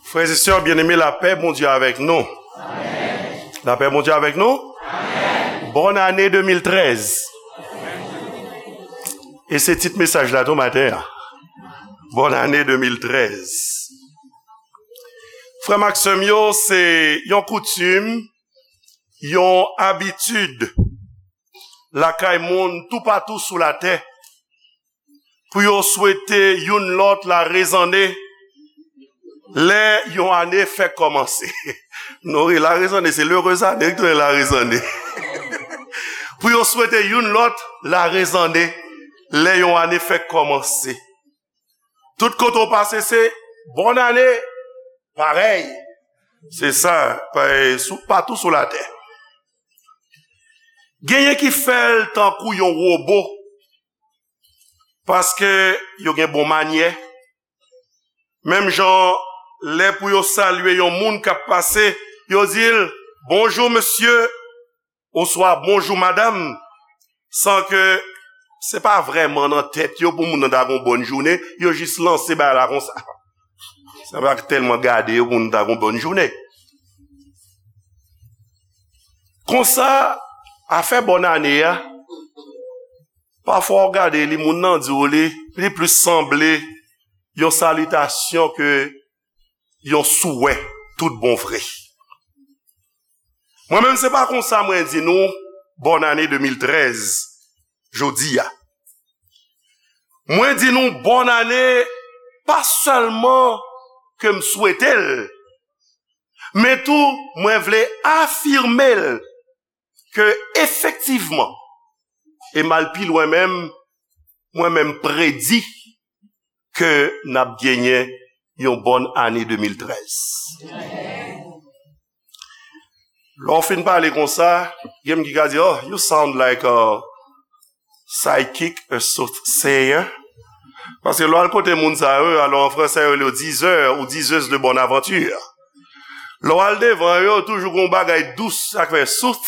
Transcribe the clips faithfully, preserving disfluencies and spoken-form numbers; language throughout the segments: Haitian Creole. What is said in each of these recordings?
Frè e sè byeneme, lapè Bondye avèk nou. Lapè Bondye avèk nou. Bòn ane de mil trèz. E se tit mesaj la tou maten an. Bòn ane de mil trèz. Frè m ak sè m yo, se yon koutim, yon abitid lakay moun toupatou sou latè pou yo swete youn lòt larezane lè yon ane fèk kòmanse. Non, wi, larezane, se l'heureuse année ki tounen larezane. Pou yo swete youn lòt larezane lè yon ane fèk kòmanse. Tout kote w pase, se bòn ane, parèy. Se sa, pa- sou- patou sou latè. Genyen ki fè l tankou yon wobo, paske yo gen bon manyè. Menm jan, lè pou yo salye yon moun k ap pase, yo di l, "Bonjou, mesye," oswa "Bonjou, madanm," san ke se pa vrèman nan tèt yo pou moun nan ta gon bòn jounen, yo jis lanse bagay la konsa. Sa pa tèlman gade yo pou moun ta gon bòn jounen. Konsa, afè bòn ane a, pafwa w gade li, moun nan di w li, li plis sanble yon salitasyon ke yon souwè tout bon vre. Mwen menm, se pa konsa mwen di nou bòn ane de mil trèz jodi a. Mwen di nou bòn ane pa sèlman ke m swete l, men tou mwen vle afime l ke efektivman, e m al pi lwen menm, mwen menm predi ke n ap genyen yon bòn ane de mil trèz. Lè w fin pale konsa, gen moun ki ka di, "Oh, you sound like a psychic, a soothsayer." Paske lè w al kote moun sa yo, alò an fransè yo rele yo diseur ou diseuse de bonne aventure. Lè w al devan yo, toujou gon bagay dous, sa k fè sooth,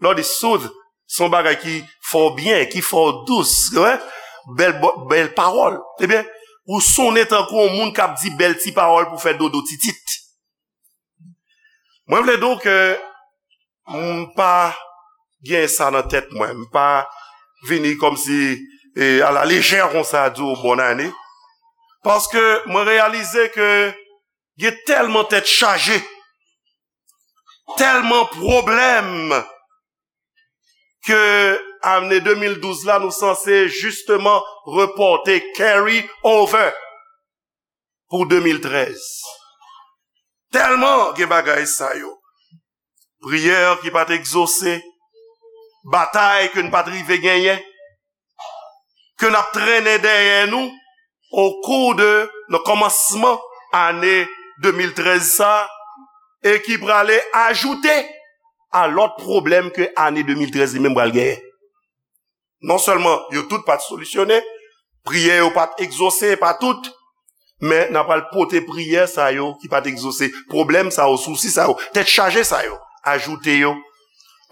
lè w di sooth, se yon bagay ki fè w byen, ki fè w dous, wi. Bèl bo- bèl pawòl. Ebyen, ou sonnen tankou yon moun k ap di bèl ti pawòl pou fè dodo titit. Mwen vle di w ke m pa gen sa nan tèt mwen. M pa vini kòmsi, e, a la lejè konsa di w bòn ane. Paske mwen reyalize ke gen tèlman tèt chaje, tèlman pwoblèm ke ane de mil douz la, nou sanse jisteman repòte, carry over pou de mil trèz. Tèlman gen bagay sa yo. Priyè ki pa t egzose, batay ke n pa t rive genyen, ke n ap trennen dèyè nou o kou de, nan kòmansman ane de mil trèz sa, e ki prale ajoute a lòt pwoblèm ke ane de mil trèz li menm pral genyen. Non sèlman yo tout pa t solisyonnen, priyè yo pa t egzose, pa tout, men n a pral pote priyè sa yo ki pa t egzose, pwoblèm sa yo, sousi sa yo, tèt chaje sa yo, ajoute yo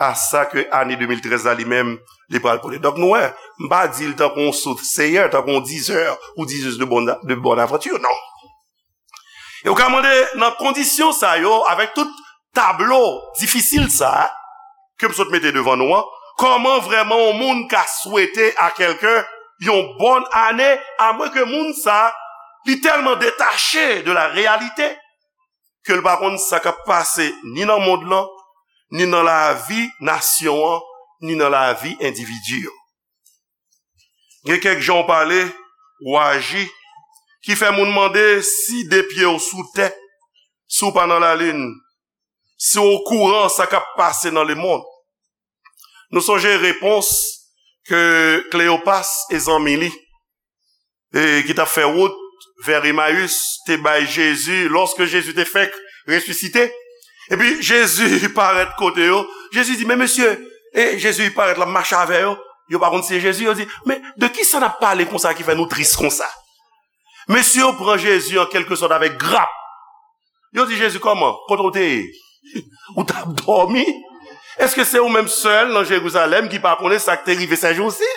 a sa ke ane de mil trèz la li menm, li pral pote. Donk nou wè, m pa di l tankou yon soothsayer, tankou yon diseur ou diseuse de bonne, de bonne aventure, non. E ou ka mande nan kondisyon sa yo, avèk tout tablo difisil sa a ke m sot mete devan nou an, kòman vrèman yon moun ka swete a kèlken yon bòn ane, amwenke moun sa a, li tèlman detache de la réalité ke l pa konn sa k ap pase ni nan mond lan, ni nan lavi nasyon an, ni nan lavi endividi yo. Gen kèk jan w pale, w aji, ki fè moun mande si de pye w sou tè, si w pa nan lalin, si w okouran sa k ap pase nan lemonn. Nou sonje repons ke Kleyopas e zanmi li, e ki t ap fè wout vè Emayis, te bay Jezi, lòske Jezi te fèk resisite. Epi Jezi parèt kote yo. Jezi di, "Men mesye," e Jezi parèt, l ap mache avè yo. Yo pa konn si se Jezi. Yo di, "Men de kisa n ap pale konsa ki fè nou tris konsa?" Mesye yo pran Jezi an kèlkesòt avèk grap. Yo di Jezi, "Kòman? Kote w te ye? Ou t ap dòmi? Èske se ou menm sèl nan Jerizalèm ki pa konnen sa k te rive sèjousi?"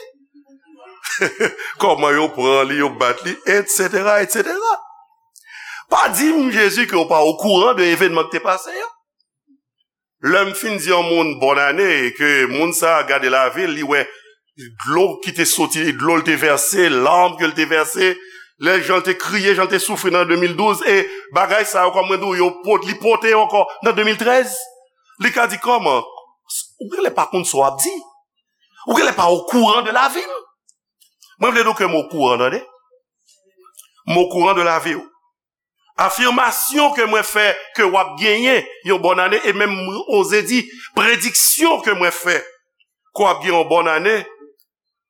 Kòman yo pran li, yo bat li, etsetera, etsetera. Pa di m, Jezi, ke w pa okouran de evènman ki te pase yo. Lè m fin di yon moun bòn ane, e ke moun sa a gade lavi l, li wè dlo ki te soti, dlo l te vèse, làn ke l te vèse, lè jan l te kriye, jan l te soufri nan de mil douz, e bagay sa yo, kòm mwen di w, yo pot-, li pote yo ankò nan de mil trèz. Li ka di, kòman? Ou genlè pa konn sa w ap di. Ou genlè pa okouran de lavi m. Mwen vle di w ke m okouran, tande. M okouran de lavi w. Afimasyon ke mwen fè ke w ap genyen yon bòn ane, e menm mwen oze di, prediksyon ke mwen fè ke w ap gen yon bòn ane,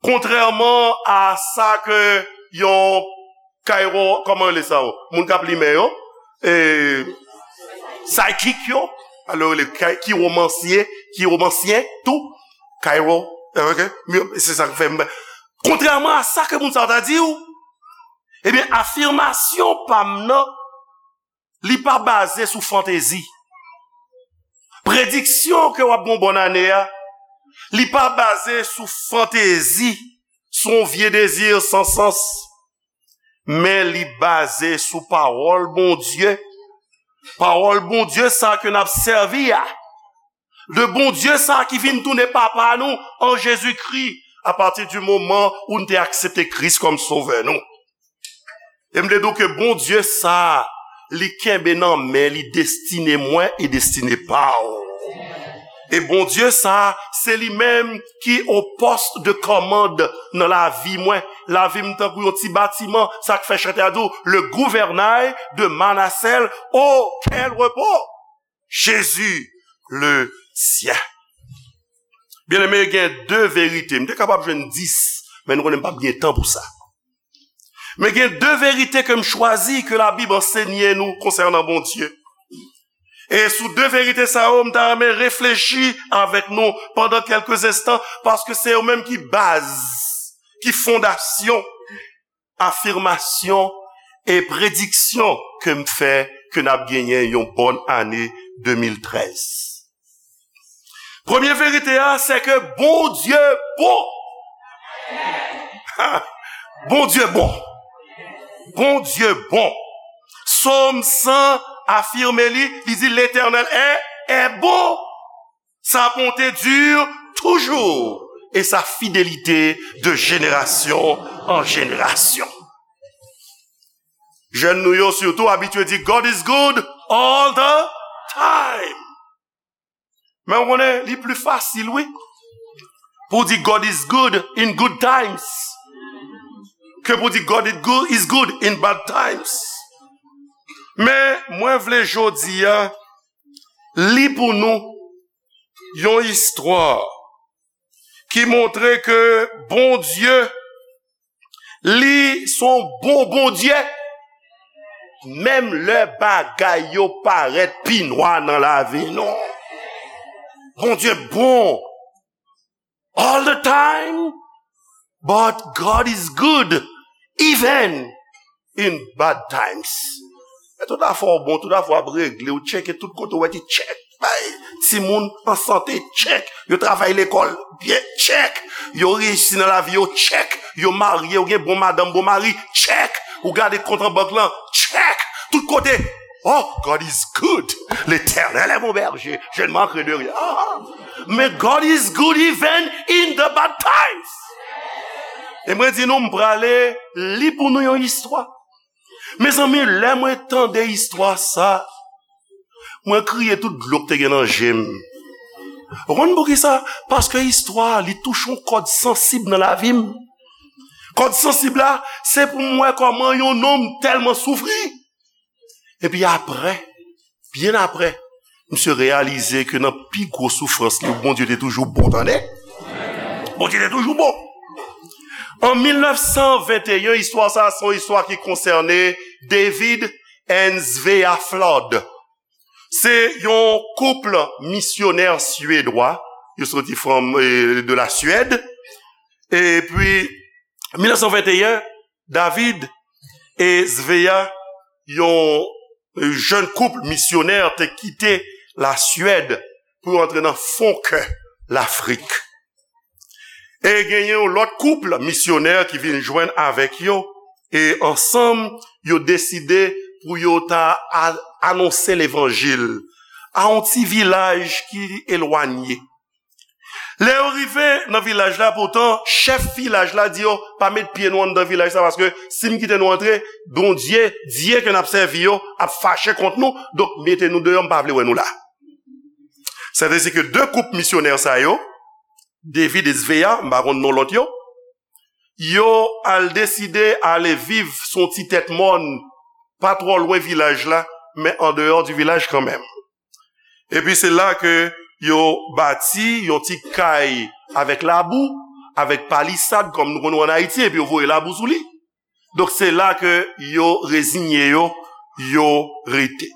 kontrèman a sa ke yon kaywo, kòman rele sa yo? Moun k ap li men yo, e, psychic yo, alò rele kay-, kiwomansye, kiwomansyen tou, kaywo, ok? Se sa k fè m, kontrèman a sa ke moun sa yo ta di w, ebyen, afimasyon pa m nan, li pa baze sou fantezi. Prediksyon ke w ap gen yon bòn ane a, li pa baze sou fantezi, sou yon vye dezi san sans, men li baze sou pawòl Bondye. Pawòl Bondye sa ke n ap sèvi a. De Bondye sa ki vin tounen papa nou an Jezikri, apati di moman ou n te aksepte Kris kòm sovè nou. E m te di w ke Bondye sa, li kenbe nan men li destine mwen e destine pa w. E Bondye sa, se li menm ki o post de kòmand nan lavi mwen. Lavi m tankou yon ti batiman, sa k fè chantè a di w, le gouvernail de ma nacelle, oh, quel repos! Jésus, le sien. Byeneme, gen de verite. M te kapab jwenn dis, men nou konnen m p ap gen tan pou sa. Men gen de verite ke m chwazi, ke Labib ansenye nou konsènan Bondye. E sou de verite sa yo, m ta renmen reflechi avèk nou pandan kèlke enstan, paske se yo menm ki baz, ki fondasyon afimasyon e prediksyon ke m fè ke n ap genyen yon bòn ane de mil trèz. Premye verite a, se ke Bondye bon. Bondye bon. Bondye bon. Sòm san afime li, li di, L'Éternel est, est bon. Sa bonte dure toujours et sa fidélité de génération en génération. Jèn nou yo sitou abitye di, God is good all the time. Men w konnen, li pli fasil, wi, pou di God is good in good times ke pou di God is good, is good in bad times. Men mwen vle jodi a li pou nou yon istwa ki montre ke Bondye, li se yon bon Bondye, menm lè bagay yo parèt pi nwa nan lavi nou. Bondye bon all the time, but God is good even in bad times. Men tout afè w bon, tout afè w ap regle, ou tcheke tout kote, ou wè ki tchèk. Bay timoun an sante, tchèk. Yo travay lekòl byen, tchèk. Yo reyisi nan lavi yo, tchèk. Yo marye, yo gen bon madanm, bon mari, tchèk. Ou gade kont an bank lan, tchèk. Tout kote, oh, God is good. L'Éternel est mon berger, je ne manquerai de rien. Ah, men God is good even in the bad times. E mwen di nou, m prale li pou nou yon istwa. Mezanmi, lè mwen tande istwa sa, mwen kriye tout dlo k te gen nan je m. Ou konn poukisa? Paske istwa a, li touche yon kòd sansib nan lavi m. Kòd sansib la, se pou m wè kòman yon nonm tèlman soufri. Epi apre, byen apre, misye reyalize ke nan pi gwo soufrans li, Bondye te toujou bon, tande. Bondye te toujou bon. An mil nèf san venteyen, istwa sa a se yon istwa ki konsène David and Svea Flood. Se yon koup misyonè swedwa, yo soti from, eh, de la Suède. Epi, mil nèf san venteyen, David e Svea, yon jèn koup misyonè, te kite la Suède pou yo antre nan fon kè Lafrik. E genyen yon lòt koup misyonè ki vin jwenn avèk yo, e ansanm, yo deside pou yo ta a- anonse levanjil a yon ti vilaj ki elwanye. Lè yo rive nan vilaj la, poutan, chèf vilaj la di yo, "Pa met pye nou anndan vilaj sa, paske si m kite nou antre, Bondye, dye ke n ap sèvi yo, ap fache kont nou, donk mete nou deyò, m pa vle wè nou la." Sètadi ke de koup misyonè sa yo, David e Svea, m pa konn non lòt yo, yo al deside ale viv sou yon ti tèt mòn, pa twò lwen vilaj la, men andeyò di vilaj kanmenm. Epi se la ke yo bati yon ti kay avèk labou, avèk palisad, kòm nou konn wè ann Ayiti, epi yo voye labou sou li. Donk se la ke yo reziye yo, yo rete.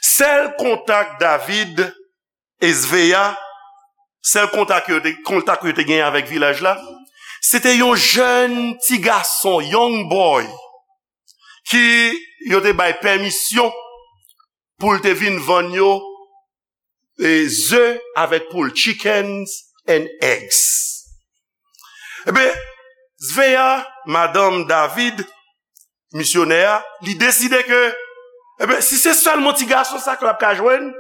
Sèl kontak David e Svea, sèl kontak yo te, kontak yo te genyen avèk vilaj la, se te yon jèn ti gason, young boy, ki yo te bay pèmisyon pou l te vin vann yo, e, ze avèk poul, chickens and eggs. Ebyen, Svea, madanm David, misyonè a, li deside ke, ebyen, si se sèlman ti gason sa ke l ap ka jwenn,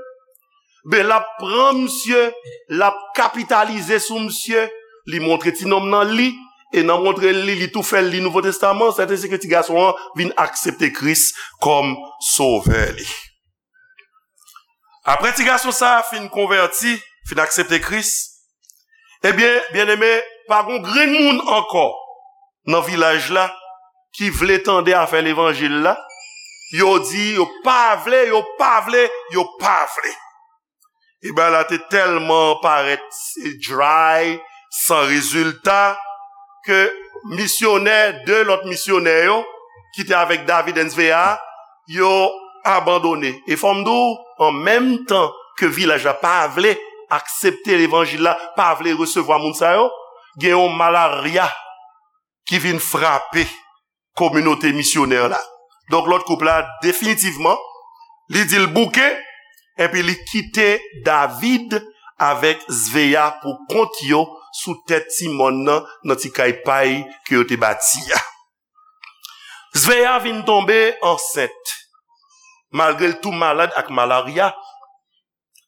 ben, l ap pran misye, l ap kapitalize sou misye, li montre ti nonm nan li, e nan montre li, li tou fè l li Nouvo Testaman, sètadi ke ti gason an vin aksepte Kris kòm sovè li. Apre ti gason sa a fin konvèti, fin aksepte Kris, ebyen, byeneme, pa gon grenn moun ankò nan vilaj la ki vle tande afè levanjil la. Yo di yo pa vle, yo pa vle, yo pa vle. E bagay la te tèlman parèt dry, san rezilta, ke misyonè, de lòt misyonè yo, ki te avèk David and Svea, yo abandone. E fò m di w, an menm tan ke vilaj la pa vle aksepte levanjil la, pa vle resevwa moun sa yo, gen yon malarya ki vin frape kominote misyonè la. Donk, lòt koup la, definitivman, li di l bouke, epi li kite David avèk Svea pou kont yo sou tèt ti mòn nan, nan ti kay pay ke yo te bati a. Svea vin tonbe ansent, malgre l tou malad ak malarya.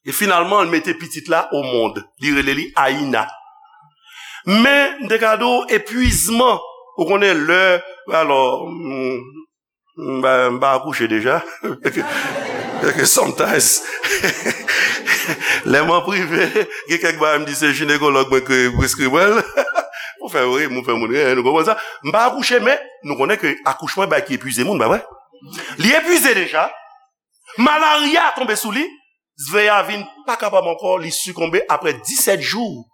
E finalman, l mete pitit la o mond. Li rele li Aina. Men, m te ka di w, epwizman, ou konnen lè, alò, m, m, m pa akouche deja. Paske sometimes, lè m an prive, gen kèk bagay m di se jinekològ mwen ki preskri mwen l. Pou fè ri, pou fè moun ri, nou konprann sa. M pa akouche, men nou konnen ke akouchman e bagay ki epwize moun, pa vre? Li epwize deja. Malarya tonbe sou li. Svea vin pa kapab ankò, li sikonbe. Apre disèt jou,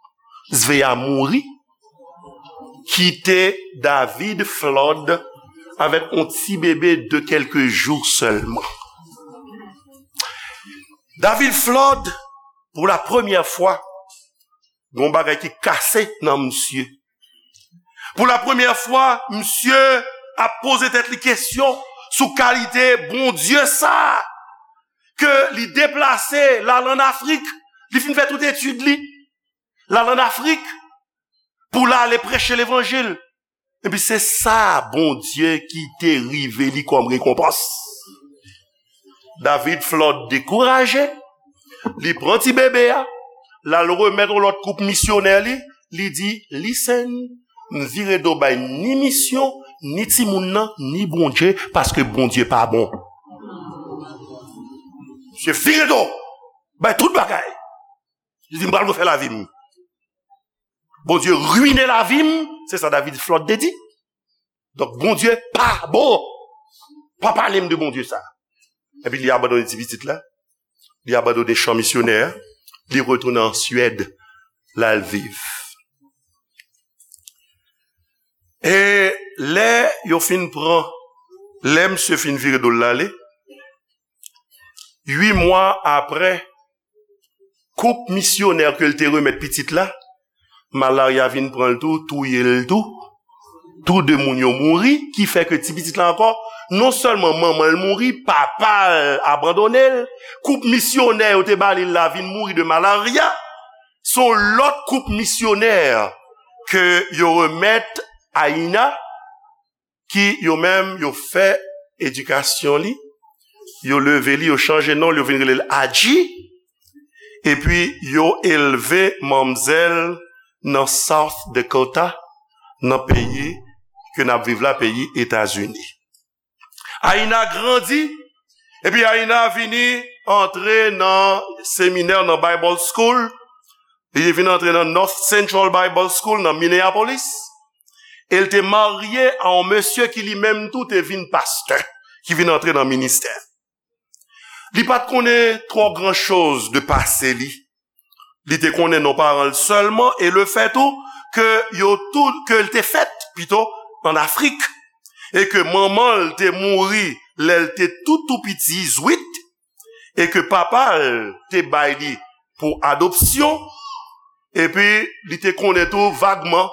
Svea mouri. Kite David Flood avèk yon ti bebe de kèlke jou sèlman. David Flood, pou la premyè fwa, gon bagay ki kase nan misye. Pou la premyè fwa, misye ap poze tèt li kesyon sou kalite Bondye sa a, ke li deplase, l al ann Afrik, li fin fè tout etid li, l al ann Afrik pou l ale preche levanjil. Epi se sa Bondye ki te rive li kòm rekonpans. David Flood dekouraje, li pran ti bebe a, l al remèt yon lòt koup misyonè li, li di, "Listen, m vire do bay ni misyon, ni timoun nan, ni Bondye, paske Bondye pa bon." Misye vire do bay tout bagay. Li di, "M pral refè lavi m." Bondye ruine lavi m, se sa David Flood te di. Donk, Bondye pa bon. Pa pale m de Bondye sa. Epi li abandone ti pitit la. Li abandone chan misyonè a. Li retounen an Swèd. L al viv. E lè yo fin pran, lè misye fin vire do l ale, uit mwa apre, koup misyonè ke l te remèt pitit la, malarya vin pran l tou, touye l tou. Tou de moun yo mouri, ki fè ke ti pitit la ankò, non sèlman manman l mouri, papa l abandone l, koup misyonè yo te ba li la vin mouri de malarya. Se yon lòt koup misyonè ke yo remèt Aina, ki yo menm yo fè edikasyon li, yo leve li, yo chanje non l, yo vin rele l Adji, epi yo elve manmzèl nan South Dakota, nan peyi ke n ap viv la, peyi Etazini. Aina grandi, epi Aina vini antre nan seminè, nan Bible School. Li vin antre nan North Central Bible School nan Minneapolis. E l te marye a yon mesye ki li menm tou te vin pastè, ki vin antre nan ministè. Li pa t konnen twò gran choz de pase li. Li te konnen non paran l sèlman e lefèt tou ke yo tou, ke l te fèt pito an Afrik e ke manman l te mouri lè l te tou tou piti, zwit, e ke papa l te bay li pou adopsyon, epi li te konnen tou vagman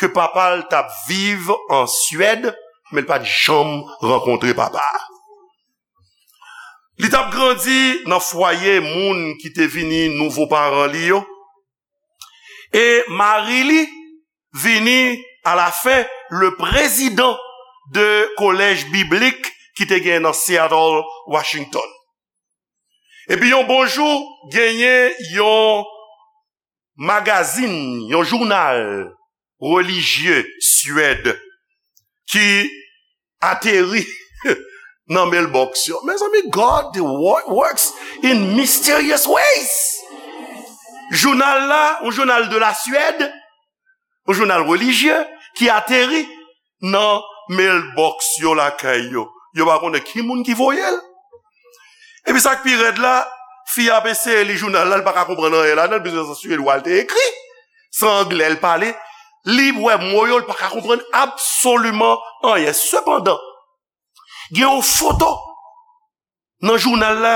ke papa l t ap viv an Swèd, men l pa t janm rankontre papa a. Li t ap grandi nan fwaye moun ki te vini nouvo paran li yo. E mari li vini alafen le prezidan de kolèj biblik ki te gen nan Seattle, Washington. Epi yon bon jou, genyen yon magazin, yon jounal relijye Swèd ki ateri nan mailbox yo. Mezanmi, God wo- works in mysterious ways. Jounal la, yon jounal de la Suède, yon jounal relijye ki ateri nan mailbox yo lakay yo. Yo pa konnen ki moun ki voye l. Epi sa k pi rèd la, fi a ap eseye li jounal la, li pa ka konprann anyen ladan l, piske se an swedwa l te ekri, se an anglè l pale. Li wè mo yo, li pa ka konprann absoliman anyen. Sepandan, gen yon foto nan jounal la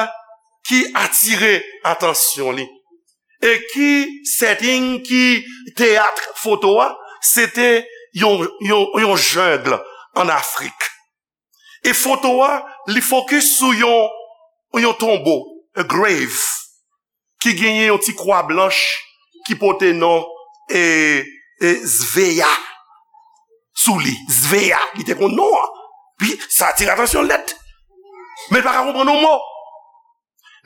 ki atire atansyon li. E ki setting, ki teyat foto a, se te yon, yon, yon jungle an Afrik. E foto a, li fokis sou yon, yon tonbo, a grave, ki genyen yon ti kwa blanch ki pote non e, e Sveya sou li. Sveya, li te konn non an. Pi, sa atire atansyon l nèt. Men l pa ka konprann yon mo.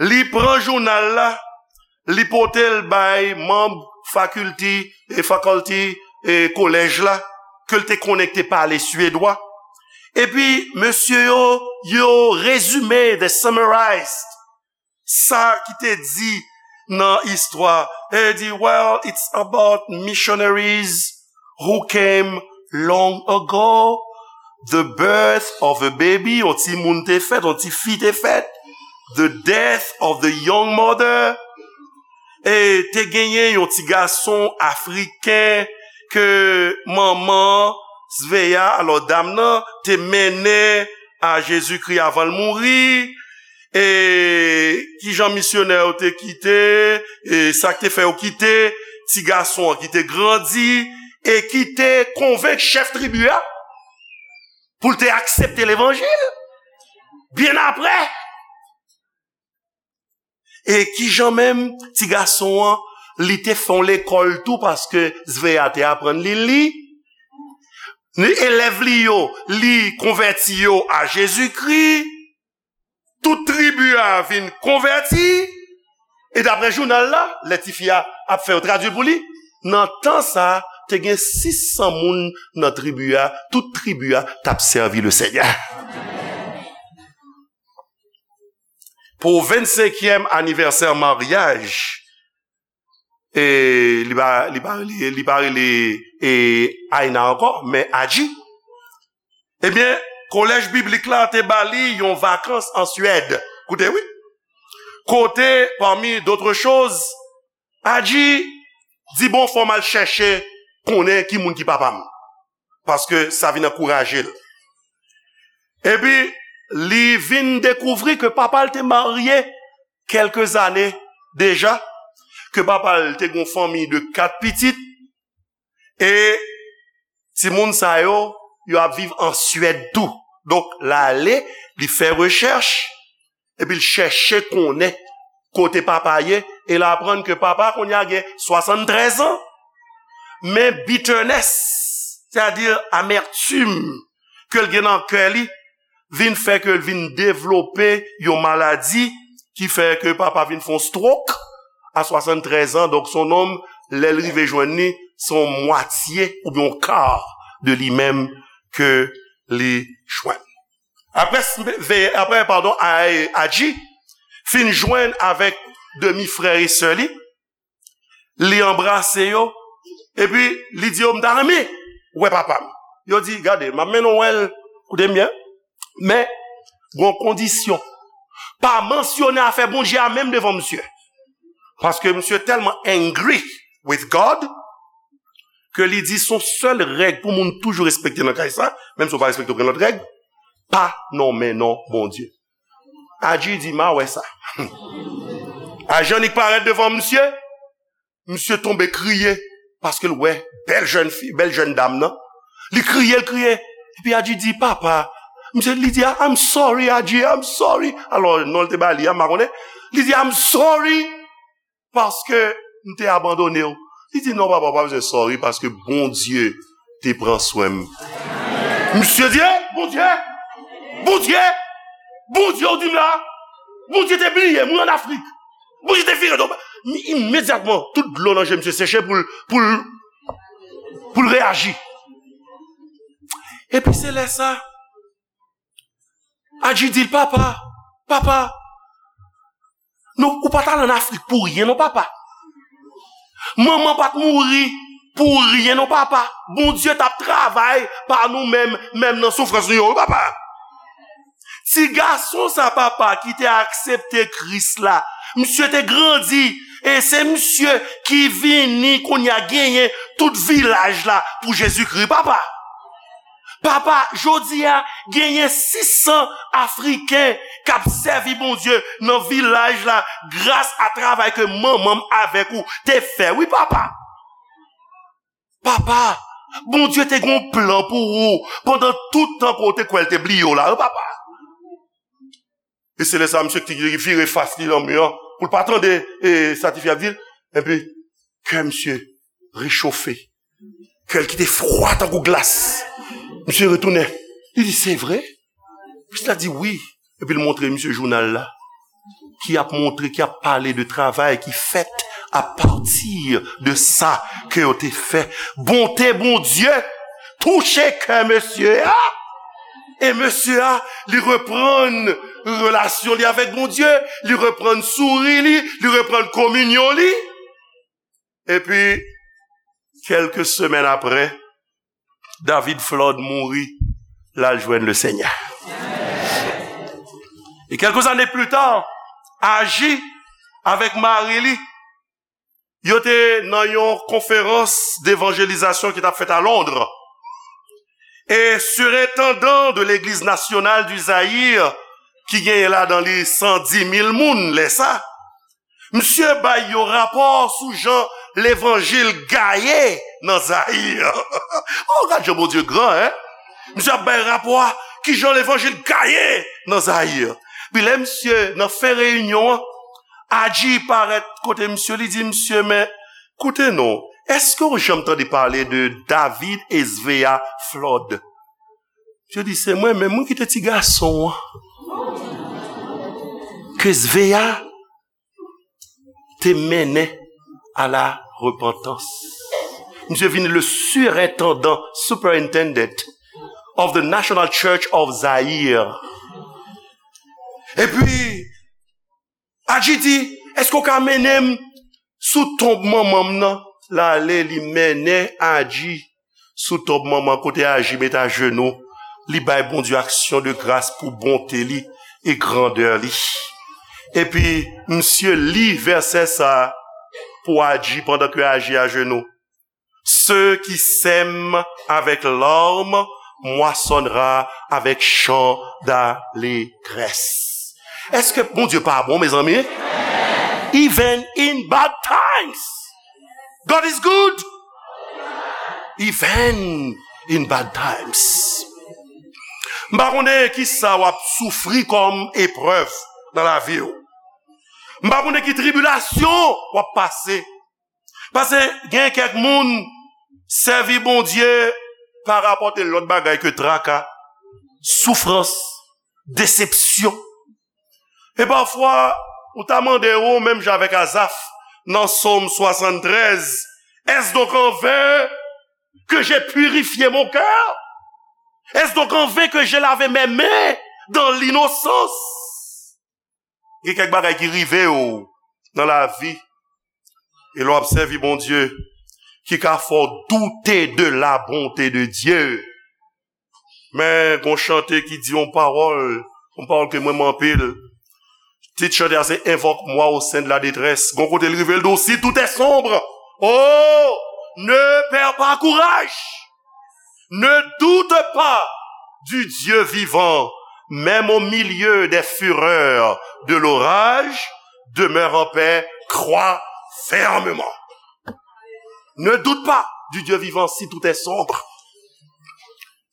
Li pran jounal la, li pote l bay manm faculty, e faculty, e kolèj la, ke l te konnen ki te pale swedwa. Epi, mesye yo, yo rezime, they summarized sa ki te di nan istwa. E di, well, it's about missionaries who came long ago, the birth of a baby, yon timoun te fèt, yon tifi te fèt, the death of the young mother, e te genyen yon ti gason afriken ke manman Sveya, alò dam nan, te mennen a Jezikri avan l mouri, e kijan misyonè yo te kite, e sa k te fè yo kite ti gason an ki te grandi, e ki te konvenk chèf tribi a pou l te aksepte levanjil. Byen apre, e kijan menm ti gason an, li te fè yon lekòl tou, paske Sveya te aprann li li. Ni elèv li yo, li konvèti yo a Jezikri. Tout tribi a vin konvèti. E daprè jounal la, lè tifi a ap fè yo tradui l pou li, nan tan sa a, te gen sis san moun nan tribi a, tout tribi a t ap sèvi Lesenyè. Pou vennsenkyèm anivèsè maryaj, e li pa, li pa rele, li pa rele, e, Aina ankò, men Adji. Ebyen, kolèj biblik la te ba li yon vakans an Swèd. Koute, wi. Kote, parmi d'autres choses, Adji di, bon, fò m al chèche konnen ki moun ki papa m. Paske sa vin ankouraje l. Epi, li vin dekouvri ke papa l te marye kèlke zane deja, ke papa l te gen yon fanmi de kat pitit, e timoun sa yo, yo ap viv an Swèd tou. Donk, l ale, li fè rechèch, epi l chèche konnen kote papa ye, e l aprann ke papa kounye a gen swasanntrèz an. Men bitterness, sètadi amètim ke l gen nan kè li, vin fè ke l vin devlope yon maladi ki fè ke papa vin fè yon stroke a swasanntrèz an. Donk, se yon nonm, lè l rive jwenn li, se yon mwatye oubyen yon ka de li menm ke li jwenn. Apre, apre, padon, Adji fin jwenn avèk demi frè e sè li, li anbrase yo, epi li di yo, "M ta renmen wè papa m." Yo di, "Gade, m ap mennen w wè l, koute m byen, men gon kondisyon. Pa mansyone afè Bondye a menm devan misye." Paske misye tèlman angry with God, ke li di se yon sèl règ pou moun toujou respekte nan kay sa, menm si w pa respekte okenn lòt règ, pa nonmen non Bondye. Adji di, "M a wè sa." Adji annik parèt devan misye, misye tonbe kriye, paske l wè bèl jèn fi, bèl jèn dam nan. Li kriye, l kriye. Epi Adji di, "Papa," misye, li di, "I'm sorry, Adji, I'm sorry." Alò, non l te ba li a, m pa konnen. Li di, "I'm sorry." Paske m te abandone w. Li di, "Non, papa, w pa bezwen sorry, paske Bondye te pran swen m." Misye di, "Eh, Bondye! Bondye! Bondye, w di m la! Bondye te bliye m, wi, ann Afrik! Bondye te vire do m!" Imedyatman, tout dlo nan je misye seche pou l, pou l, pou l reyaji. Epi se lè sa, Adji di l, "Papa, papa, nou, ou pa t al ann Afrik pou ryen non, papa. Manman pa t mouri pou ryen non, papa. Bondye t ap travay pa nou menm, menm nan soufrans nou yo, wi, papa." Ti gason sa, papa, ki te aksepte Kris la, misye te grandi, e se misye ki vini kounye a genyen tout vilaj la pou Jezikri, papa. Papa, jodi a, genyen sis san Afriken k ap sèvi Bondye nan vilaj la gras a travay ke manman m avèk ou te fè. Wi, papa. Papa, Bondye te gen yon plan pou ou pandan tout tan ke w te kwè l te bliye w la, wi, papa. E se lè sa, misye ki vire fas li nan mi an, pou l pa tande, e, sa tifi ap di l. Epi, kè misye rechofe. Kè l ki te fwa tankou glas. Misye retounen. Li di, "Se vre?" Misye la di, "Wi." Epi l montre misye jounal la, ki ap montre, ki ap pale de travay ki fèt apati de sa ke yo te fè. Bonte Bondye touche kè mesye a. E mesye a, li reprann relasyon li avèk Bondye, li reprann souri li, li reprann kominyon li. Epi, kèlke semèn apre, David Flood mouri, l al jwenn Lesenyè. E quelques années plus tard, Aji avèk mari li, yo te nan yon konferans devanjelizasyon ki t ap fèt a Londres. E sirentandan de Legliz Nasyonal di Zayir, ki genyen ladan li san di mil moun lè sa, misye bay yon rapò sou jan levanjil gaye nan Zayir. Oh, gad jan Bondye gran, en! Misye ap bay rapò a, ki jan levanjil gaye nan Zayir. Pi lè misye, nan fen reyinyon an, Aji parèt kote misye, li di, "Misye, men, koute non, èske w janm tande pale de David Esvea Flood?" Misye di, "Se mwen menm, mwen ki te ti gason an ke Esvea te mennen a la repantans." Misye vin le surintendant, superintendent of the National Church of Zaire. Epi, Aji di, "Èske w ka mennen m sou tonb manman m nan?" L ale, li mennen Aji sou tonb manman kote Aji met ajenou, li bay Bondye aksyon de gras pou bonte li e grandè li. Epi, misye li vèsè sa a pou Aji pandan ke Aji ajenou. Ceux qui sèment avec larmes moissonnera avec chant d'allégresse. Èske Bondye pa bon, mezanmi? Even in bad times, God is good. Even in bad times. M pa konnen ki sa w ap soufri kòm eprèv nan lavi w. M pa konnen ki tribilasyon w ap pase. Paske gen kèk moun sèvi Bondye pa rapòte lòt bagay ke traka, soufrans, desepsyon. E pafwa, ou ta mande ou, menm jan avèk Azaf, nan Sòm swasanntrèz, est-ce donc en vain que j'ai purifié mon cœur? Est-ce donc en vain que j'ai lavé mes mains dans l'innocence? Gen kèk bagay ki rive w nan lavi, e lè w ap sèvi Bondye, ki ka fè w doute de la bonté de Dieu. Men, gon chante ki di yon pawòl, yon pawòl ke m renmen anpil. Tit chante a se Invoque-moi au sein de la détresse. Gon kote l rive l di w, si tout est sombre, oh, ne perds pas courage. Ne doute pas du Dieu vivant, même au milieu des fureurs de l'orage, demeure en paix, crois fermement. Ne doute pas du Dieu vivant si tout est sombre.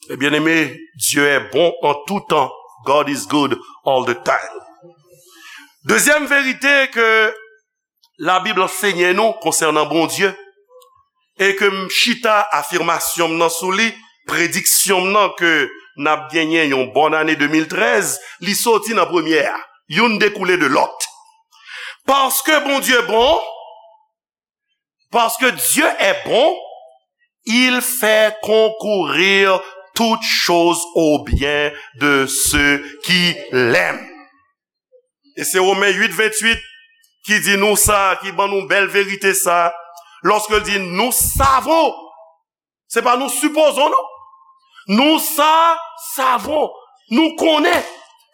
Et bien-aimé, Dieu est bon en tout temps. God is good all the time. Dezyèm verite ke Labib ansenye nou konsènan Bondye, e ke m chita afimasyon m nan sou li, prediksyon m nan ke n ap genyen yon bòn ane de mil trèz, li soti nan premye a. Youn dekoule de lòt. Paske Bondye bon, parce que Dieu est bon, il fait concourir toutes choses au bien de ceux qui l'aiment. E se Women uit venntuit ki di nou sa, ki ban nou bèl verite sa, lòske l di, nous savons, se pa nous supposons, non. Nous sa, savons, nou konnen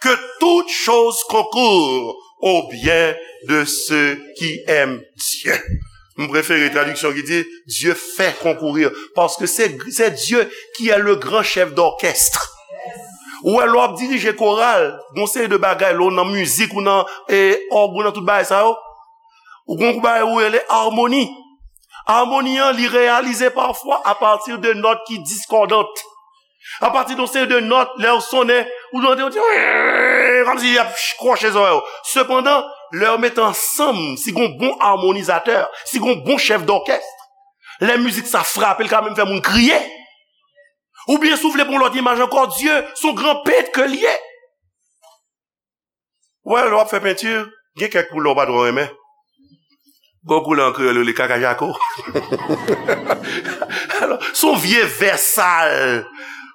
que toutes choses concourent au bien de ceux qui aiment Dieu. M prefere tradiksyon ki di, Dieu fait concourir, paske se, se Dieu qui est le grand chef d'orchestre. Ou wè, lè w ap dirije koral, gon seri de bagay, lè w nan mizik, ou nan e, òg, ou nan tout bagay sa yo, ou gon bagay ou rele amoni. Amoni an, li reyalize pafwa apati de nòt ki diskòdant. Apati de yon seri de nòt, lè yo sonnen, ou tande yo di, kòmsi y ap kwoche zòrèy yo. Sepandan, lè yo mete ansanm, si gon bon amonizatè, si gon bon chèf dòkès, lè mizik sa frape, l ka menm fè moun kriye. Oubyen, si w vle pran lòt imaj ankò, Dye, se yon gran pent ke l ye. Wè, lè w ap fè penti, gen kèk koulè w pa twò renmen. Gon koulè an kreyòl, yo rele kaka jako. Alò, se yon vye vè sal.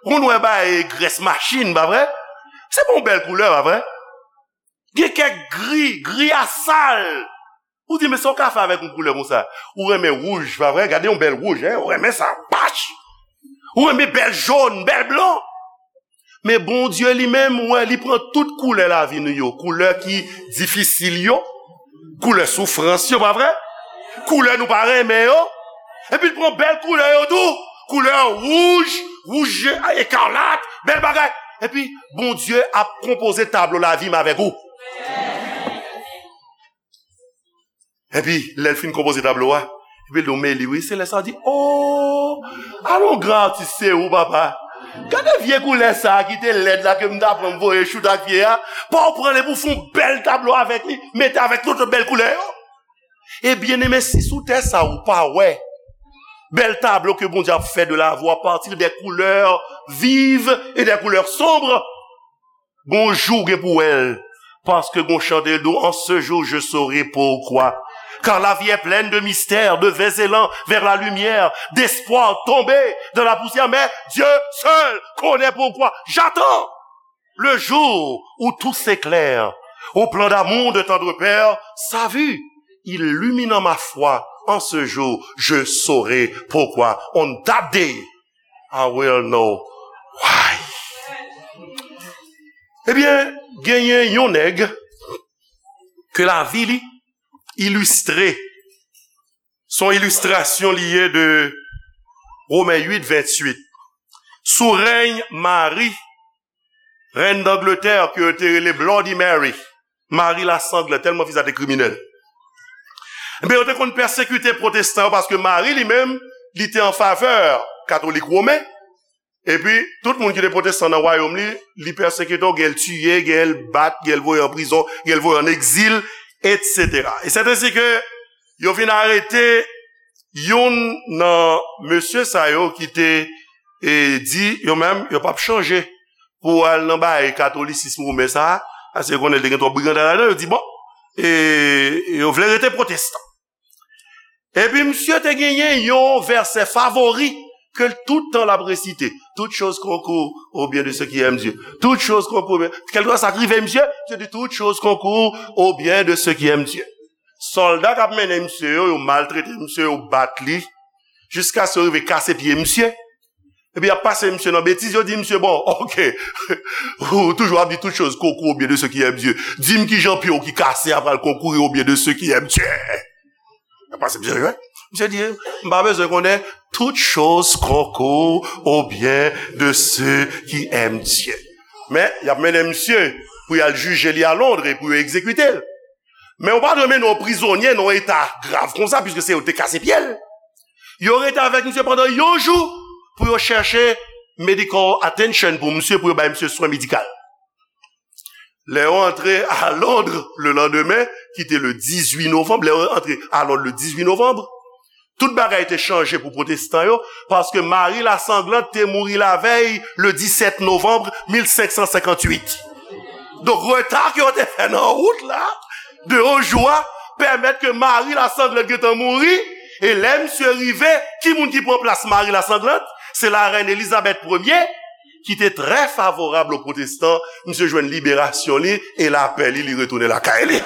Moun wè bay grès machin, pa vre? Se pa yon bèl koulè, pa vre? Gen kèk gri, gri a sal. Ou di, men sa w ka fè avèk yon koulè konsa? Ou renmen wouj, pa vre? Gade yon bèl wouj, en? Ou renmen sa, pach! Ou renmen bèl jòn, bèl blan. Men Bondye li menm, ou wè, li pran tout koulè lavi nou yo. Koulè ki difisil yo, koulè soufrans yo, pa vre? Koulè nou pa renmen yo. Epi l pran bèl koulè yo tou. Koulè wouj, wouj ekalat, bèl bagay. Epi Bondye ap konpoze tablo lavi m avèk ou. Epi, lè l fin konpoze tablo a, epi l di w, men li wi, se lè sa w di, o, alon gran atis se ou, papa. Gade vye koulè sa a ki te lèd la ke m ta pran m voye choute ak pye a, pa w pran l epi w fè yon bèl tablo avèk li, mete avèk tout lòt bèl koulè yo. E byeneme, si sou tè sa a ou pa wè bèl tablo ke Bondye ap fè de la vi w apati de koulè viv e de koulè sonb, gon jou w gen pou wè l, paske gon chante l di w, en ce jour je saurai pourquoi. Car la vie est pleine de mystères, de vains élans vers la lumière, d'espoirs tombés dans la poussière, mais Dieu seul connaît pourquoi. J'attends le jour où tout s'éclaire au plan d'amour de tendre Père, sa vue illuminant ma foi, en ce jour je saurai pourquoi. On that day I will know why. Ebyen, genyen yon nèg ke lavi li ilistre. Se yon ilistrasyon li ye de Women uit venntuit. Sou rèy Mari, rèn Dangletè, ke yo te rele Bloody Mary, Mari Lasanglè, tèlman fi sa te kriminèl. Ebyen, yo te konn pèsekite pwotestan yo paske Mari li menm, li te an favè katolik women. Epi, tout moun ki te pwotestan nan wayòm li, li pèsekite yo, gen l tiye, gen l bat, gen l voye an prizon, gen l voye an egzil, etsetera. E sèt ensi ke yo vin arete youn nan mesye sa yo ki te, e, di yo menm, yo p ap chanje. pou al nan bagay katolisism women sa a, paske konnen l te gen twòp briganda ladan, yo di, bon, e, yo vle rete pwotestan. Epi misye te genyen yon vèsè favori ke l tout tan l ap resite. Toutes choses concourent au bien de ceux qui aiment Dieu. Toutes choses concourent au bien. Kèlkeswa sa k rive misye, misye di, toutes choses concourent au bien de ceux qui aiment Dieu. Sòlda k ap mennen misye yo, yo maltrete misye, yo bat li, jiskaske yo rive kase pye misye. Epi y ap pase misye nan betiz, yo di misye, bon, ok, ou toujou ap di toutes choses concourent au bien de ceux qui aiment Dieu. Di m kijan pye w ki kase a pral konkourir au bien de ceux qui aiment Dieu. Y ap pase misye, wi. Misye di, m pa bezwen konnen, toutes choses concourent au bien de ceux qui aiment Dieu. Men, y ap mennen misye pou y al jije li a Londres e pou yo egzekite l. Men ou pa dwe mennen yon prizonye nan yon eta grav konsa, piske se yo te kase pye l. Yo rete avèk misye pandan yon jou pou yo chèche medical attention pou misye, pou yo bay misye swen medikal. Lè yo antre a Londres le lendemain, ki te le dizwit novanm, lè yo antre a Londres le dizwit novanm, tout bagay te chanje pou pwotestan yo, paske Mari Lasanglante te mouri lavèy, le disèt novanm mil senk san senkantuit. Donk, reta ke yo te fè nan wout la, de yon jou a, pèmèt ke Mari Lasanglante gentan mouri, e lè misye rive, ki moun ki pran plas Mari Lasanglante? Se larèn Elizabèt premye, ki te trè favorab o pwotestan, misye jwenn liberasyon li e lapè li, li retounen lakay li.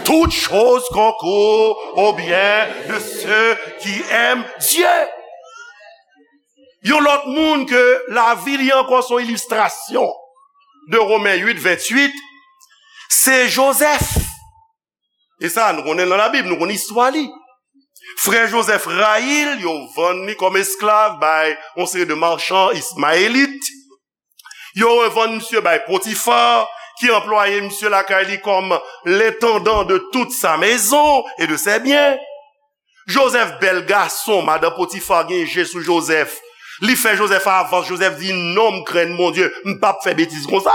Toutes choses concourent au bien de ceux qui aiment Dieu. Yon lòt moun ke lavi li ankò se yon ilistrasyon de Women uit, venntuit, se Jozèf. E sa, nou konnen l nan Labib, nou konnen istwa li. Frè Jozèf rayi l, yo vann li kòm esklav bay yon seri de machan ismayelit. Yo revann misye bay Potifa, ki anplwaye misye lakay li kòm l'intendant de toute sa maison et de ses biens. Jozèf bèl gason, madan Potifa gen je sou Jozèf. Li fè Jozèf avans, Jozèf di, non, m krenn Bondye, m p ap fè betiz konsa.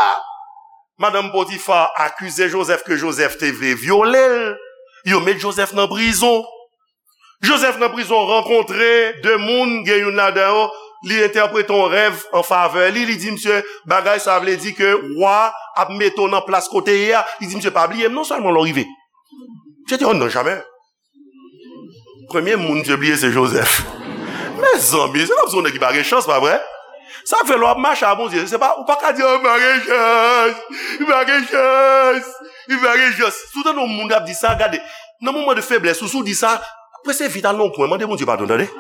Madanm Potifa akize Jozèf ke Jozèf te vle vyole l. Yo met Jozèf nan prizon. Jozèf nan prizon rankontre de moun, gen youn ladan yo, li entèprete yon rèv an favè li, li di misye, bagay sa vle di ke wa ap mete w nan plas kote ye a. Li di misye, pa bliye m non sèlman lè w rive. Misye di, oh non, jamè. Premye moun misye bliye se Jozèf. Mezanmi, se kòmsi yon nèg ki pa gen chans, pa vre? Sa k fè lè w ap mache a Bondye, se pa, ou pa ka di, oh, m pa gen chans, m pa gen chans, m pa gen chans. Si w tande yon moun k ap di sa, gade, nan moman de feblès ou, si w di sa, prese vit al nan yon kwen, mande Bondye padon, tande.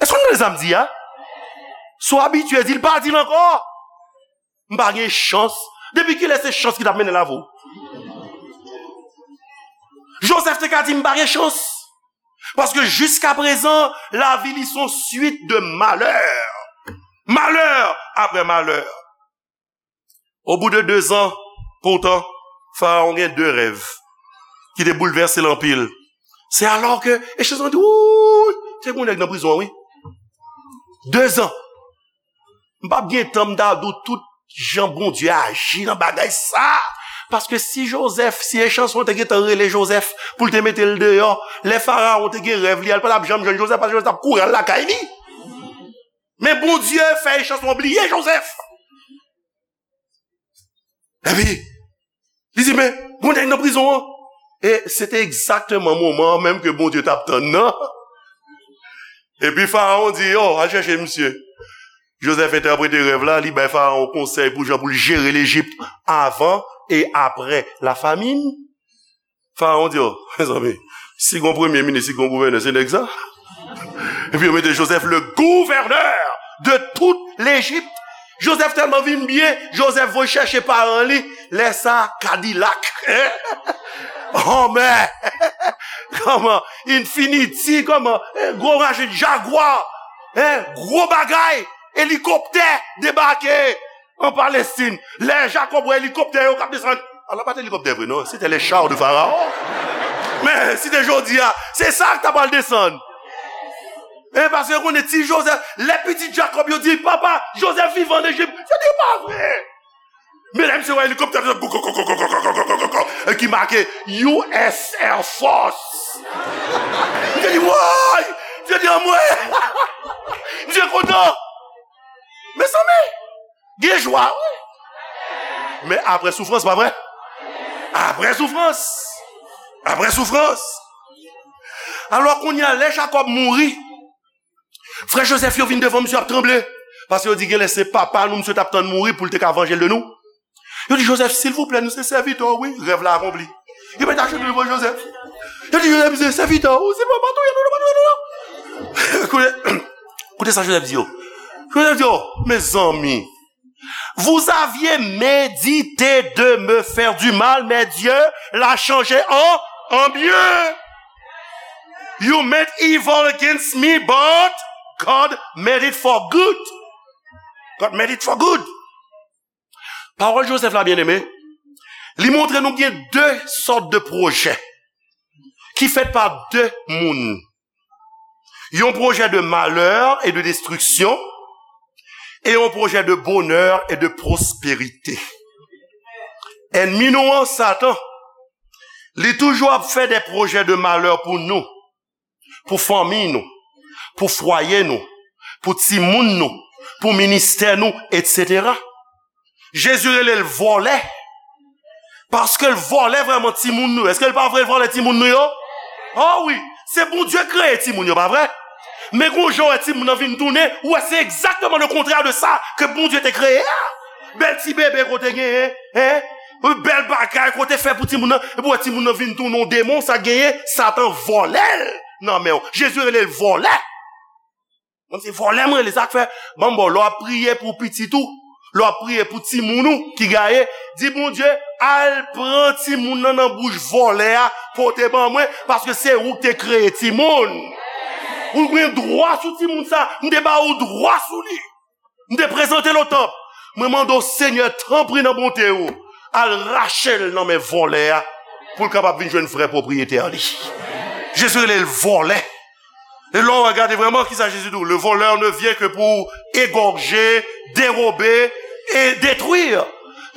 Èske w tande sa m di a? Si w abitye di l, pa di l ankò. M pa gen chans. Depi kilè se chans ki t ap mennen l avè w? Jozèf te ka di, m pa gen chans. Paske jiskaprezan, lavi li se yon swit de malè. Malè apre malè. Au bout de deux ans, poutan, Farawon gen de rèv ki te boulvèse l anpil. Se alò ke, e Jozèf di, wouy, se gon nèg nan prizon an, wi. Dezan. M p ap gen tan m ta di w tout jan Bondye aji nan bagay sa. Paske si Jozèf, si Echanson te gentan rele Jozèf pou l te mete l deyò, lè Farawon te gen rèv li a, l pa t ap janm jwenn Jozèf, paske Jozèf t ap kouri al lakay li. Men Bondye fè Echanson bliye Jozèf. Epi, li di, men, gon nèg nan prizon an. E se te egzakteman moman an menm ke Bondye t ap tann nan. Epi Farawon di, oh, al chèche misye. Jozèf entèprete rèv la, li bay Farawon konsèy pou jan pou l jere Lejip avan e apre lafamin. Farawon di, oh, mezanmi, si gon premye minis, si gon gouvènè, se nèg sa. Epi yo mete Jozèf le gouverneur de toute l'Égypte. Jozèf tèlman vin byen, Jozèf voye chèche paran li, lè sa, Kadilak. Anmè! Kòman? Infiniti, kòman? Gwo machin, Jagwa, gwo bagay, elikoptè debake an Palestin. Lè Jakòb wè elikoptè yo k ap desann, alò pa t elikoptè vre non, se te les chars de Pharaon. Men si te jodi a, se sa k ta pral desann. E paske yo konnen ti Jozèf, lè pitit Jakòb yo di, papa, Jozèf vivan an Ejip, yo di pa vre. Men lè misye wè elikoptè, e ki make U S Air Force. Misye di, woy! Misye di, anmwe! Misye kontan! Mezanmi, gen jwa, wi. Men apre soufrans, pa vre? Apre soufrans. Apre soufrans. Alò, kounye a, lè Jakòb mouri, frè Jozèf yo vin devan misye ap tranble. Paske yo di, genlè se papa nou misye t ap tann mouri pou l te ka vanje l de nou. Yo di, Jozèf, silvouplè, nou se sèvitè w, wi. Rèv la akonpli. Yo mete ajenou devan Jozèf. Yo di, Jozèf, se sèvitè w, silvouplè, pa touye nou, pa touye nou. Koute, koute sa Jozèf di yo. Jozèf di yo, mezanmi, vous aviez médité de me faire du mal, mais Dieu l'a changé en, en bien. You meant evil against me, but God made it for good. God made it for good. Pawòl Jozèf la, byeneme, li montre nou gen de sòt de pwojè ki fèt pa de moun. Yon pwojè de malè e de destriksyon e yon pwojè de bonè e de pwosperite. Ènmi nou an, Satan, li toujou ap fè de pwojè de malè pou nou, pou fanmi nou, pou fwaye nou, pou timoun nou, pou ministè nou, etsetera. Jezi rele l vòlè. Paske l vòlè vrèman timoun nou. Èske l pa vre l vòlè timoun nou yo? O wi, se Bondye kreye timoun yo, pa vre? Men gon jan wè timoun nan vin tounen, ou wè se egzakteman le kontrè de sa ke Bondye te kreye a. Bèl ti bebe kote genyen, en? Bèl bagay kote fè pou timoun nan, epi wè timoun nan vin tounen yon demon, sa genyen, Satan vòlè l nan men w. Jezi rele l vòlè. Mwen se vòlè mwen rele, sa k fè, ban m ba w, lè w ap priye pou pitit ou, lè w ap priye pou timoun ou ki gaye, di Bondye, al pran timoun nan nan bouch vòlè a, pote ban mwen, paske se ou ki te kreye timoun. Ou gen dwa sou timoun sa, m te ba ou dwa sou li. M te prezante l o tanp. Mwen mande w, Senyè, tanpri nan bonte w, al rache l nan men vòlè a, pou l kapab vin jwenn vrè pwopriyetè li. Jezi rele l vòlè. E lè w gade vrèman, kisa Jezi di w? Le voleur ne vient que pour égorger, dérober et détruire.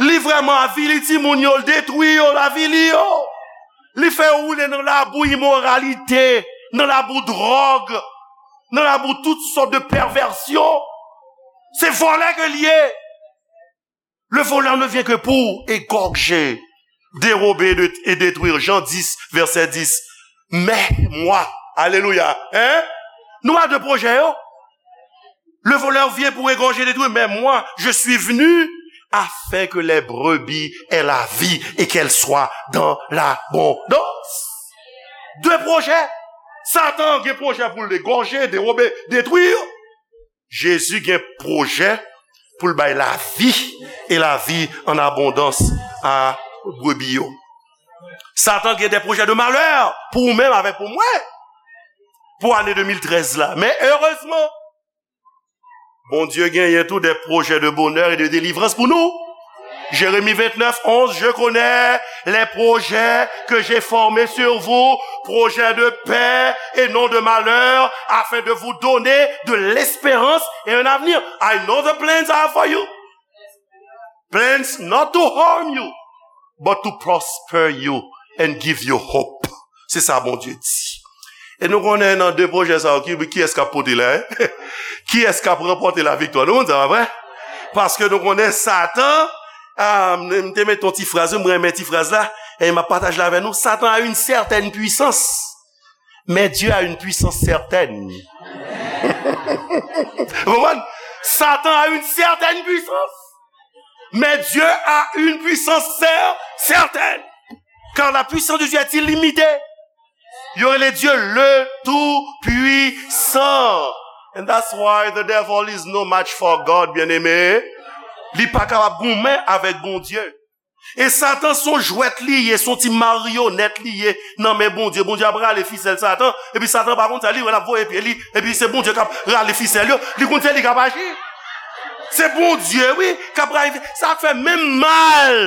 Li vrèman avili timoun yo, l detwi yo, l avili yo. Li fè yo woule nan labou imoralite, nan labou dwòg, nan labou tout sòt de pèvèsyon. Se vòlè ke l ye. Le voleur ne vient que pour égorger, dérober de- et détruire. Jean dix, verset dix. Mais moi, alelouya, hein? Nou pa de pwojè yo. Le voleur vient pour égorger, détruire, mais moi, je suis venu afin que les brebis aient la vie et qu'elle soit dans l'abondance. De pwojè. Satan gen pwojè pou l égorger, dérober, détruire. Jezi gen pwojè pou l bay lavi, e lavi an abondans a brebi yo. Satan gen de pwojè de malè pou ou menm avèk pou mwen, pou ane de mil trèz la. Men erezman, Bondye genyen tou de pwojè de bonè e de delivrans pou nou. Jérémie vingt-neuf, onze, je connais les projets que j'ai formés sur vous, projets de paix et non de malheur, afin de vous donner de l'espérance et un avenir. I know the plans I have for you. Plans not to harm you, but to prosper you and give you hope. Se sa Bondye di. E nou konnen nan de pwojè sa yo, ki, kiyès k ap pote la, en? Kiyès k ap ranpòte laviktwa? Nou konn sa, pa vre? Paske nou konnen Satan, ah, m, m te met yon ti fraz, wi, m renmen ti fraz la, e m ap pataje l avè nou. Satan a une certaine puissance, mais Dieu a une puissance certaine. Ou konprann? Satan a une certaine puissance, mais Dieu a une puissance cer- certaine. Car la puissance de Dieu est illimitée. Yo rele Dye le Tout-Puissant. And that's why the devil is no match for God, byeneme. Li pa kapab goumen avèk Bondye. E Satan se yon jwèt li ye, se yon ti maryonèt li ye nan men Bondye. Bondye ap rale fisèl Satan, epi Satan pa konn sa, li wè l ap voye pye li, epi se Bondye k ap rale fisèl yo. Li konn se li k ap aji. Se Bondye, wi, k ap rale. Sa k fè menm mal,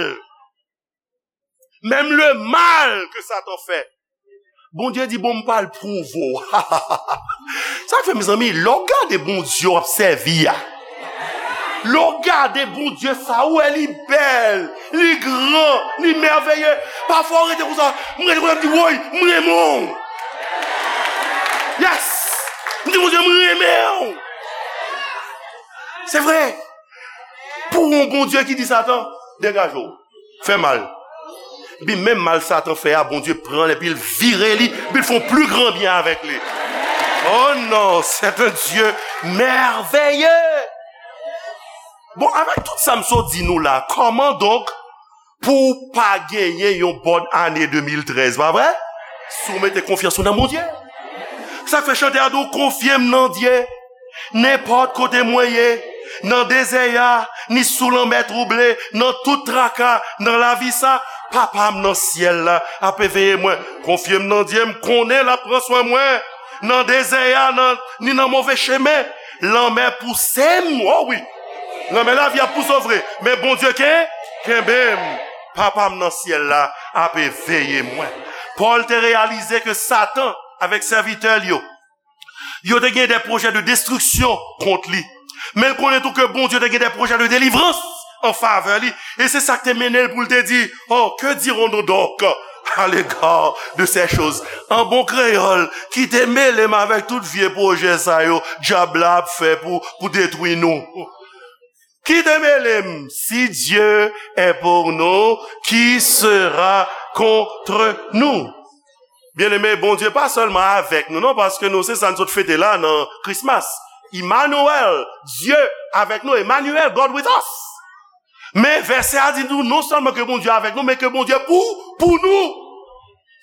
menm le mal ke Satan fè, Bondye di, bon, m pral pwouve w. Sa k fè, mezanmi, lè w gade Bondye w ap sèvi a, lè w gade Bondye sa, ou wè li bèl, li gran, li mèveye. Pafwa, w rete konsa, m rete konsa, m di, woy, m renmen w. Yes! M di, Bondye, m renmen w. Se vre. Pou yon Bondye ki di Satan, degaje w, fè mal. Epi menm mal Satan fè a, Bondye pran l epi l vire li, epi l fè yon pli gran byen avèk li. Oh non, c'est un Dieu merveilleux. Bon, avèk tout sa m sot di nou la, kòman donk pou w pa genyen yon bòn ane de mil trèz, pa vre? Si w mete konfyans ou nan Bondye. Sa k fè chantè a di w, konfye m nan Dye. Nenpòt kote mwen ye, nan dezè a, ni sou lanmè twouble, nan tout traka, nan lavi sa, Papa m nan syèl la ap veye mwen. Konfye m nan Dye, m konnen l ap pran swen mwen. Nan dezè a, nan, ni nan move chemen, lanmè pouse m, o wi. Lanmè lavi ap pouse w vre, men Bondye ken, kenbe m. Papa m nan syèl la ap veye mwen. Pòl te reyalize ke Satan, avèk sèvitè l yo, yo te gen de pwojè de destriksyon kont li. Men l konnen tou ke Bondye te gen de pwojè de delivrans an favè li. E se sa k te mennen l pou l te di, oh, que dirons-nous donc à l'égard de ces choses? An bon kreyòl, ki te mele m avèk tout vye pwojè sa yo dyab la ap fè pou, pou detwi nou. Ki te mele m? Si Dieu est pour nous, qui sera contre nous? Byeneme, Bondye pa sèlman avèk nou, non, paske nou, se sa n sot fete la nan Christmas. Emmanuel, Dye avèk nou, Emmanuel, God with us. Men vèsè a di nou non sèlman ke Bondye avèk nou, men ke Bondye pou, pou nou.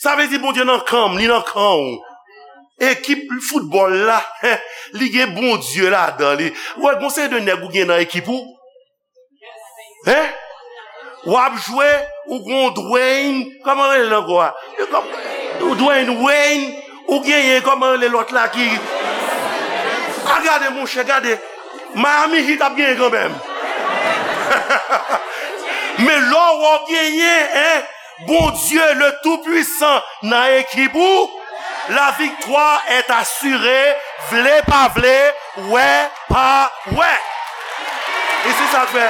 Sa vle di Bondye nan kan m, li nan kan w. Ekip foutbòl la, li gen Bondye ladan li. Ou wè, gon seri de nèg ou gen nan ekip ou. Hein? W ap jwe, ou gon Dwayne, kòman rele l ankò a? Ou Dwayne, Wayne, ou genyen, kòman rele lòt la ki. A gade, monchè, gade. Miami Heat ap genyen kanmenm. Men lè w genyen, hein, Bondye le Tout-Puissant nan ekip ou, la victoire est assurée, vle pa vle, wè pa wè. E se sa k fè,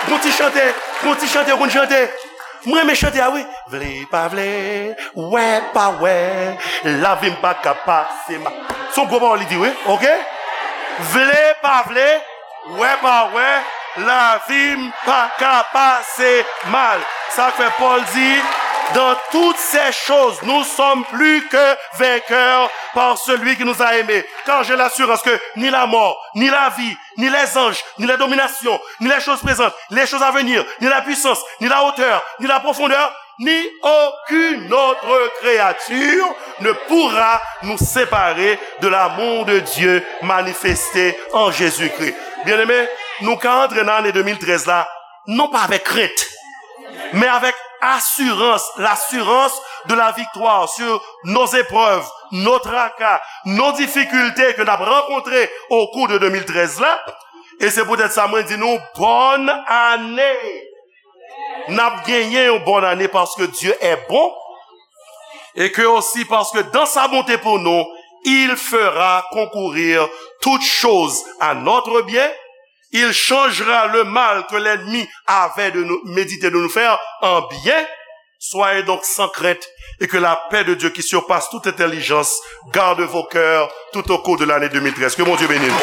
gon ti chante, gon ti chante, gon chante. Mwen renmen chante a wi. Vle pa vle, wè pa wè, lavi m pa ka pase mal. Se yon gwo pawòl li di wi, oke? Vle pa vle, wè pa wè, lavi m pa ka pase mal. Sa k fè Pòl di, dans toutes ces choses, nous sommes plus que vainqueurs par celui qui nous a aimés. Car j'ai l'assurance que ni la mort, ni la vie, ni les anges, ni les dominations, ni les choses présentes, ni les choses à venir, ni la puissance, ni la hauteur, ni la profondeur, ni aucune autre créature ne pourra nous séparer de l'amour de Dieu manifesté en Jésus-Christ. Byeneme, nou ka antre nan ane de mil trèz la, non pa avèk krent, men avèk asirans, l'assurance de la victoire sur nos épreuves, nos tracas, nos difficultés ke n ap rankontre au cours de de mil trèz la. E se poutèt sa mwen di nou, bòn ane! N ap genyen yon bòn ane paske Dieu est bon, et que aussi parce que dans sa bonté pour nous, il fera concourir toutes choses à notre bien. Il changera le mal que l'ennemi avait de nous, médité de nous faire en bien. Soyez donc sans crainte et que la paix de Dieu qui surpasse toute intelligence garde vos cœurs tout au cours de l'année deux mille treize. Que Bondye beni nou.